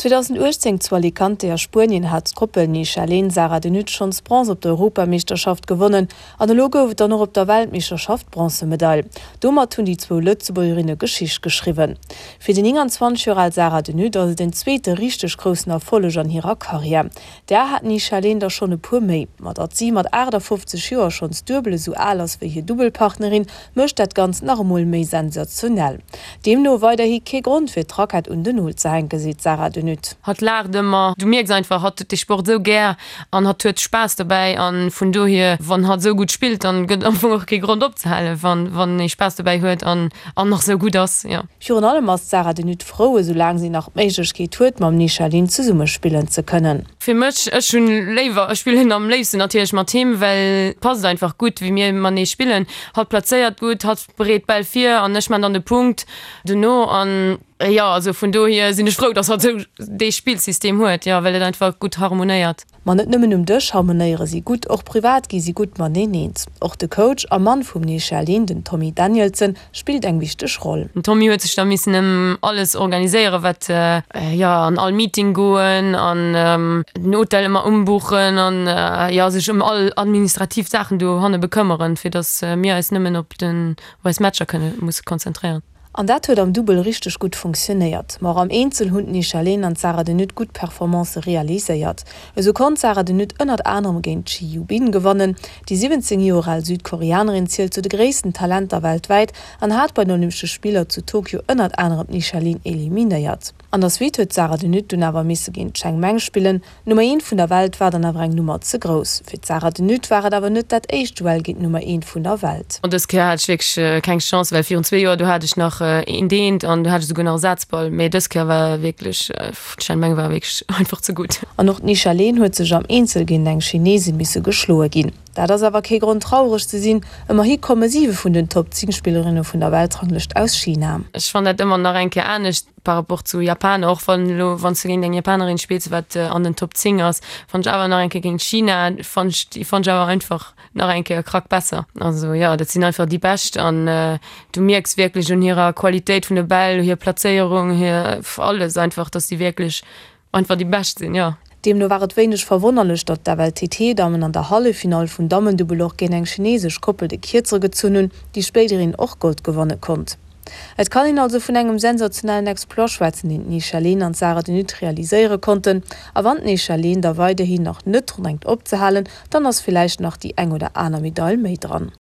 2018 zu Alicante a Spuenien hat d'Koppel Nisha Lehn-Sarah de Nutte schonns Bronze op der Europameeschterschaft gewonnen an elo gouf et dann och op der Weltmeeschterschaft d'Bronzemedail. Domat hunn déi zwou Lëtzebuergerinne Geschicht geschriwwen. Fir déi 29 Joer al Sarah de Nutte ass et en zweete richteg groussen Erfolleg an hirer Karriär. Där hat d'Nisha Lehn der schonn e puer méi. Ma datt si mat 58 Joer schonns duebel esou al ass wéi hir Dubbelpartnerin, mécht dat Ganzt nach emol méi sensationell. Deemno weiderhi kee Grond fir d'Rackett un den Nol ze hänken, seet d'Sarah De Nutte. Hatt laacht ëmmer, du mierks einfach, hatt huet dee Sport esou gär an hatt huet Spaass dobäi an vun dohier, wann hatt esou gutt spillt, dann gëtt et am Fong och kee Grond opzehalen, wann wann ee Spaass dobäi huet an an nach esou gutt ass, jo. Virun allem ass d'Sarah De Nutte frou, esou laang si nach d'Méiglechkeet huet, mam Nisha Lin zesumme spillen ze kënnen. Fir mech, ech hunn léiwer, ech spillen am léifsten natierlech mat him, well et passt einfach gutt wéi mir matenee spillen. Hatt plazéiert gutt, hatt bereet d'Bäll vir an ech man dann de Punkt dono an jo, also vun dohier sinn ech frou, dass hatt esou dee Spillsystem huet, jo, well et einfach gutt harmonéiert. Ma net nëmmen um Dësch harmonéiere si gutt, och privat gi si gutt mateneen eens. Och de Coach a Mann vum Nisha Lin, den Tommy Danielsen, spillt eng wichteg Roll. Den Tommy huet sech da missen ëm alles organiséieren, wat, jo, an all Meeting goen an den Hotel ëmmer umbuchen an, jo, sech ëm all administrativ Saachen dohanne bekëmmeren, fir datt mir eis nëmmen op den, op eis Matcher kënne musse konzentréieren. An dat huet am Dubbel richteg gutt funktionéiert. Ma och am Eenzel hunn d'Nisha Lehn an d'Sarah de Nutte gutt Performancë realiséiert. Esou konnt d'Sarah de Nutte ënnert anerem géint d'Ji Yu Bin gewannen. Déi 17 Joer al Südkoreanerin zielt zu de gréissten Talenter weltwäit an hat bei den Olympesche Spiller zu Tokio ënnert anerem d'Nisha Lin eliminéiert. An der Suite huet d'Sarah de Nutte dunn awer misse géint d'Cheng Meng spillen. D'Nummer eent vun der Welt war dann awer eng Nummer ze grouss. Fir d'Sarah de Nutte war et awer net dat éischt Duell géint d'Nummer eent vun der Welt. An dës Kéier hat ech wierklech keng Chance, well virun zwee Joer do hat ech nach eent eent an do hat ech esouguer nach e Sazball, mee dës Kéier war wierklech, d'Chen Meng war wierklech einfach ze gutt. An och d'Nisha Leen huet sech am Eenzel géint eng Chinesin misse geschloe ginn. Dat ass awer kee Grond traureg ze sinn, ëmmerhi komme siwe vun den Top 10 Spillerinne vun der Weltranglëscht aus China. Ech fannen dat ëmmer nach eng Kéier anescht par rapport zu Japaner, och wann elo wann s de géint eng Japanerin spills wat an den Top 10 ass, fannen ech awer nach eng Kéier géint China fannen ech déi fannen ech awer einfach nach eng Kéier e Krack besser. Also jo, dat sinn einfach déi Bescht an du mierks wierklech un hirer Qualitéit vun de Bäll, hir Plazéierung, hir alles einfach, dass déi wierklech Einfach déi bescht sinn, jo. Deemno war et wéineg verwonnerlech, datt d'FLTT-Dammen an der Halleffinall vum Dammendubbel och géint eng chineesesch Koppel de Kierzere gezunn hunn, déi spéiderhin och Gold gewanne konnt. Et kann een also vun engem sensationellen Exploit schwätzen, deen d'Nisha Lehn an d'Sarah de Nutte realiséiere konnten. A wann d'Nisha Lehn da weiderhin nach net drun denkt opzehalen, dann ass villäicht nach déi eng oder aner Medail méi dran.